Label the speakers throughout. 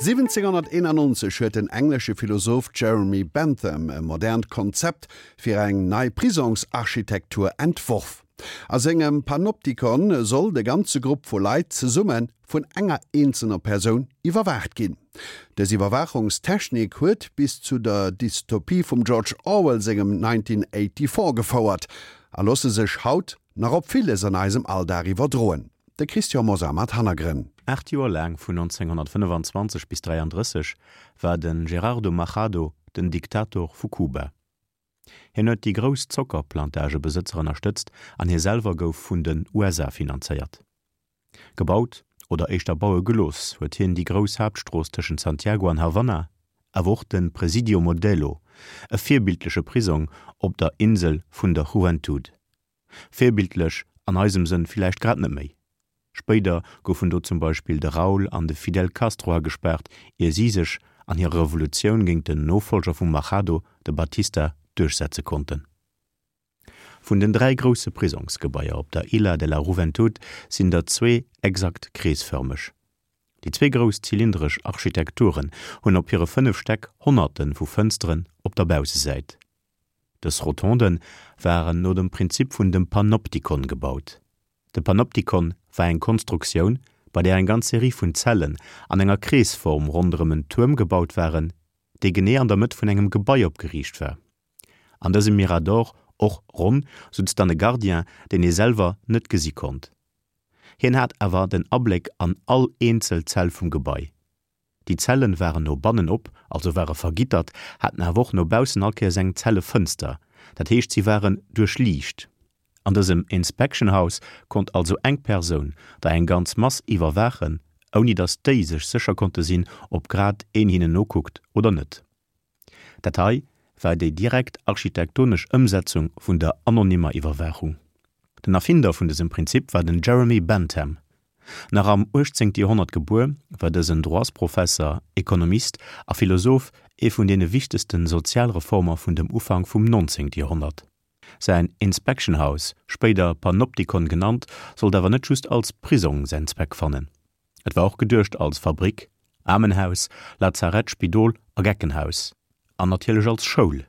Speaker 1: 1791 huet den englesche Philosoph Jeremy Bentham e modernt Konzept fir eng nei Prisongsarchitektur entworf. A sengem Panopticon soll de ganze Grupp vu Leit zesumme vun enger eenzelner Persoun iwwerwaacht ginn. Dës Iwwerwaachungstechnik huet bis zu der Dystopie vum George Orwell sengem 1984 gefouert a loosse sech haut nach op villes an eisem Alldag iwwerdroen. De Christian Mosar mat Hannergrënn.
Speaker 2: Aacht Joer laang, vun 1925 bis 33, war de Gerardo Machado den Diktator vu Kuba. Hien huet déi grouss Zockerplantagebesëtzer ënnerstëtzt an hie selwer gouf vun den USA finanzéiert. Gebaut, oder éischter baue gelooss, huet hien déi grouss Haaptstrooss tëschent Santiago an Havanna, awer och de Presidio Modelo, e virbildleche Prisong op der Insel vun der Juventud. Virbildlech an eisem Sënn villäicht grad net méi. Spéider goufen do zum Beispill de Raúl an de Fidel Castro agespaart, ier si sech an hirer Revolutioun géint den Nofollger vum Machado, de Batista, duerchsetze konnten. Vun den 3 grousse Prisongsgebaier op der Isla de la Juventud sinn der zwee exakt kreesfërmeg. Déi zwee grouss zylindresch Architekturen hunn op hire 5 Stäck Honnerte vu Fënsteren op der Baussesäit. Dës Rotonde waren no dem Prinzip vun dem Panoptikon gebaut. De Panoptikon war eng Konstruktioun, bei där eng ganz Serie vun Zellen an enger Kreesform ronderëm en Tuerm gebaut waren, dee genee an der Mëtt vun engem Gebai opgeriicht war. An dësem Mirador, och ronn, sutz dann e Gardien, deen ee selwer net gesi konnt. Hien hat awer den Abléck an all eenzel Zell vum Gebai. Déi Zellen waren no bannen op, also ware vergittert, haten awer och no baussen all Kéiers eng Zellefënster, dat heescht si waren duerchliicht. An dësem Inspection House konnt also eng Persoun der eng ganz Mass iwwerwaachen, ouni datt déi sech sécher konnte sinn, ob grad een hinnen nokuckt oder net. Dat hei war déi direkt architektonesch Ëmsetzung vun der anonymer Iwwerwaachung. Den Erfinder vun dësem Prinzip war den Jeremy Bentham. Nach am 18. Joerhonnert gebuer, war dësen Droitsprofesser, Ekonomist a Philosoph ee vun deene wichtegste Sozialreformer vun dem Ufank vum 19. Joerhonnert. Säin Inspection House, spéider Panopticon genannt, sollt awer net just als Prisong säin Zweck fannen. Et war och geduecht als Fabrick, Aarmenhaus, Lazarett, Spidol a Geckenhaus. An natierlech als Schoul.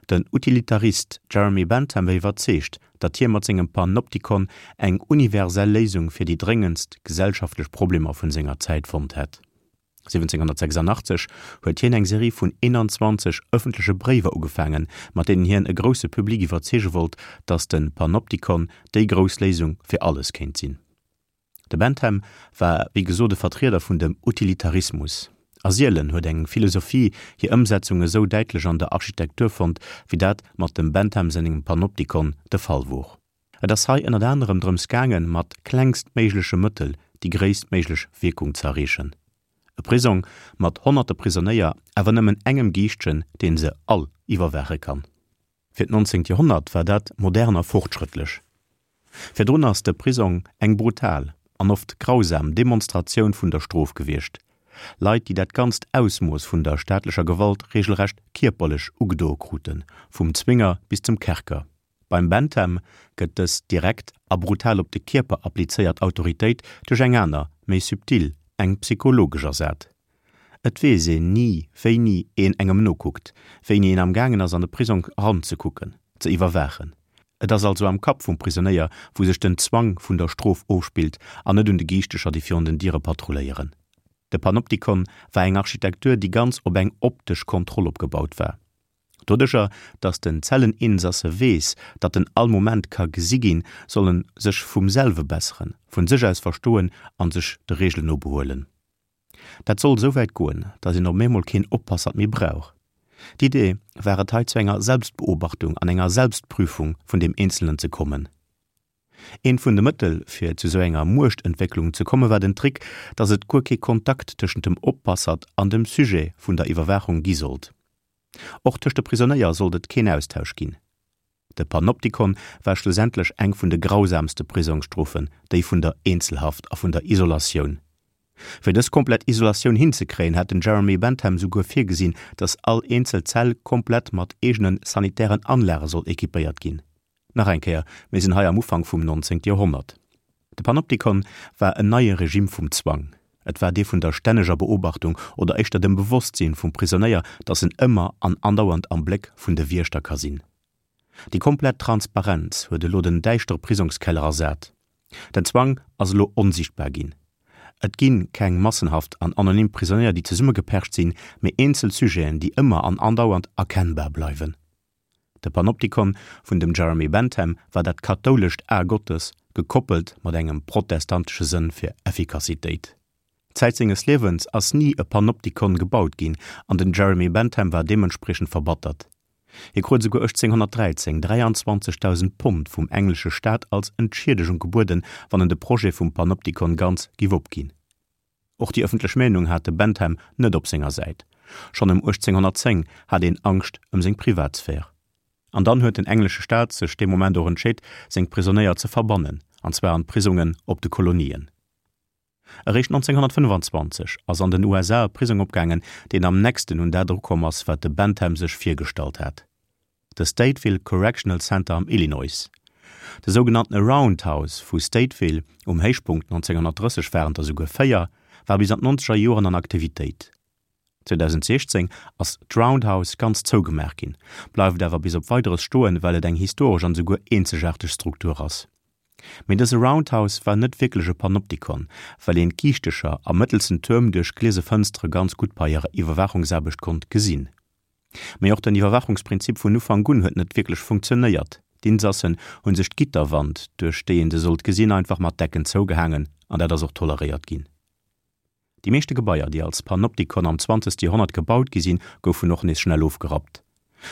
Speaker 2: Den Utilitarist Jeremy Bentham war iwwerzeegt, datt hie mat sengem Panopticon eng universell Léisung fir déi dréngendst gesellschaftlech Problemer vun senger Zäit fonnt hätt. 1786 huet hien eng Serie vun 21 ëffentleche Bréiwer ugefaangen, mat deenen hien e grousse Public iwwerzeege wollt, datt de Panopticon déi grouss Léisung fir alles kéint sinn. De Bentham war wéi gesot e Vertrieder vun dem Utilitarismus. A sielen huet eng Philosophie hir Ëmsetzung esou däitlech an der Architektur fonnt, wéi dat mat dem Bentham sengem Panoptikon de Fall wor. Et ass hei ënnert anerem drëms gaangen, mat klengstméigleche Mëttel déi gréisstméiglech Wierkung ze erreechen. E Prisong mat honnerte Prisonéier, awer nëmmen engem Giischtjen, deen se all iwwerwaache kann. Fir d'nonzéngt Joerhonnert war dat modern a fortschrëttlech. Virdrun ass de Prisong eng brutal an oft grausam Demonstratioun vun der Strof gewiescht, Leit, déi dat ganzt Ausmooss vun der staatlecher Gewalt regelrecht kierperlech ugedoe kruten, vum Zwinger bis zum Kerker. Beim Bentham gëtt dës direkt a brutal op de Kierper applizéiert Autoritéit duerch eng aner, méi subtil, eng psychologesch ersat. Et weess een ni, wéini een engem nokuckt, wéini een am gaangen ass an de Prisong eranzekucken, ze iwwerwaachen. Et ass also am Kapp vum Prisonéier, wou sech den Zwang vun der Strof ofspillt an net un de Giichtecher, déi virun den Diere patrulléieren. De Panoptikon war eng Architektur, déi ganz op eng optesch Kontroll opgebaut war. Doduercher, datt den Zelleninsasse weess, datt en all Moment ka gesi ginn, soll en sech vum selwe besseren, vun sech aus verstoen an sech de Reegelen no behuelen. Dat soll esou wäit goen, datt een op eemol keen Oppassert méi brauch. D'Idee war et hei zu enger Selbstbeobachtung an enger Selbstprüfung vun deem Eenzelnen ze kommen. Eent vun de Mëttel fir zu esou enger Muechtentwécklung ze komme war den Trick, datt et guer kee Kontakt tëschent dem Oppassert an dem Sujet vun der Iwwerwaachung gi sollt. Och tëscht de Prisonéier sollt et keen Austausch ginn. De Panoptikon war schlussendlech eng vun de grausamste Prisongsstrofen, déi vun der Eenzelhaft a vun der Isolatioun. Fir dës komplett Isolatioun hinzekréien, hat den Jeremy Bentham souguer virgesinn, datt all eenzel Zell komplett mat eegene sanitären Anlage soll equipéiert ginn. Nach eng Kéier, mir sinn hei am Ufank vum 19. Joerhonnert. De Panoptikon war en neie Regime vum Zwang. Et war dee vun der stänneger Beobachtung oder éischter dem Bewosstsinn vum Prisonéier, datt en ëmmer an andauernd am Bléck vun de Wiechter ka sinn. Déi komplett Transparenz huet elo den däischtere Prisongskeller ersat. Den Zwang ass elo onsiichtbar ginn. Et gi keng massenhaft an anonym Prisonéier, déi zesummegepercht sinn, mee eenzel Sujeten, déi ëmmer an andauernd erkennbar bleiwen. De Panoptikon vun dem Jeremy Bentham war dat kathoulescht A Gottes, gekoppelt mat engem protestantesche Sënn fir Effikassitéit. Zäit senges Liewens ass ni e Panoptikon gebaut ginn an den Jeremy Bentham war deementspriechend verbattert. Hie krut esouguer 1813 23.000 Pond vum englesche Staat als Entschiedegung gebueden, wann en de Projet vum Panoptikon ganz giff opginn. Och déi ëffentlech Meenung hat de Bentham net op senger Säit. Schonn ëm 1810 hat een Angscht ëm seng Privatsphär. An dann huet den englesche Staat sech dee Moment och entscheet, seng Prisonéier ze verbannen, an zwar an d'Prisongen op de Kolonien. Eréischt 1925 ass an den USA e Prisong opgaangen, deen am nächsten un dat erukomm ass, wat de Bentham sech virgestallt hat. De Stateville Correctional Center am Illinois. De sougenannte Roundhouse vu Stateville, um Héichpunkt 1930 waren der souguer 4, war bis an d'nonzeger Joren an Aktivitéit. 2016 ass d'Roundhouse ganz zougemaach ginn, bleift awer bis op Weideres stoen, well et eng historesch an esouguer eenzegaarteg Struktur ass. Mee dëse Roundhouse war net wierklech e Panoptikon, well een d'Giichtecher am mëttelsten Tuerm duerch gliese Fënstere ganz gutt bei hirer Iwwerwaachungsaarbecht konnt gesinn. Mee och den Iwwerwaachungsprinzip vun Ufank un huet net wierklech funktionéiert. D'Insassen hu sech d'Gitterwand, duerch déi een se sollt gesinn, einfach mat Decken zougehaangen an dat ass och toleréiert ginn. Déi meeschte Gebaier, déi als Panoptikon am zwanzegste Joerhonnert gebaut gi sinn, goufen och nees schnell ofgerappt.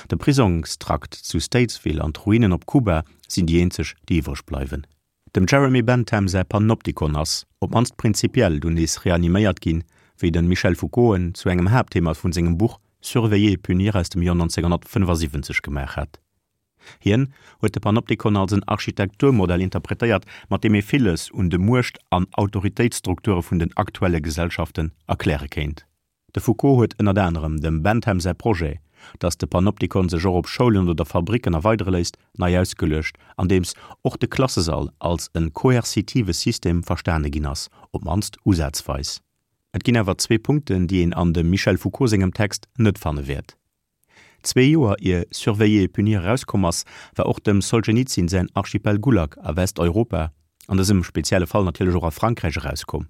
Speaker 2: De Prisongstrakt zu Statesville an d'Ruinen op Kuba sinn déi eenzeg, déi iwwreg bleiwen. Dem Jeremy Bentham säi Panoptikon ass, op d'mannst prinzipiell, dunn nees reaniméiert ginn, wéi de Michel Foucault en zu engem Haaptthema vun sengem Buch Surveiller et punir aus dem Joer 1975 gemaach hat. Hien huet de Panoptikon als en Architekturmodell interpretéiert, mat deem ee villes un de Muecht an Autoritéitsstrukture vun den aktuelle Gesellschaften erkläre kéint. De Foucault huet ënnert anerem dem Bentham säi Projet, datt de Panoptikon sech och op Schoulen oder Fabricken erweidere léisst, nei ausgeluecht, andeems och de Klassesall als e koerzitive System verstane ginn ass, op d'mannst usazweis. Et ginn awer zwee Punkten, déi een an dem Michel Foucault sengem Text net fanne wäert. Zwee Joer ier Surveiller et punir erauskomm ass, war och dem Solschenizyn säin Archipel Gulag a Westeuropa, an dësem spezielle Fall natierlech och a Frankräich, erauskomm.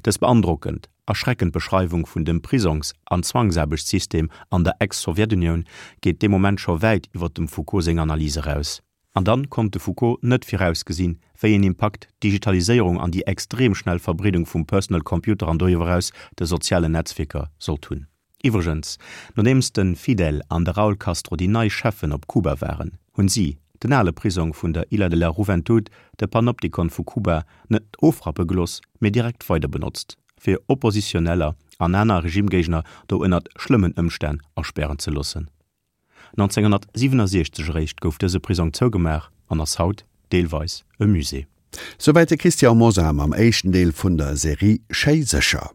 Speaker 2: Dës beandrockend, erschreckend Beschreiwung vun dem Prisongs an Zwangsaarbechtssystem an der Ex-Sowjetunioun geet dee Moment scho wäit iwwer dem Foucault seng Analys eraus. An dann konnt de Foucault net virausgesinn, wéi een Impakt d'Digitaliséierung an déi extrem schnell Verbreedung vum Personal Computer an doriwwer eraus de sozialen Netzwierker sollt hunn. Iwwregens, nodeems de Fidel an de Raul Castro déi nei Cheffen op Kuba waren, hunn si den ale Prisong vun der Illa de la Juventud, de Panoptikon vu Kuba, net ofrappe gelooss, mee direkt weider benotzt, fir Oppositioneller an aner Regimegéigner do ënnert schlëmmen Ëmstänn aspären ze loossen. 1967 eréischt gouf dëse Prisong zougemaach an ass haut deelweis e Musée.
Speaker 1: Souwäit de Christian Mosar mam éischten Deel vun der Serie Schéi sécher.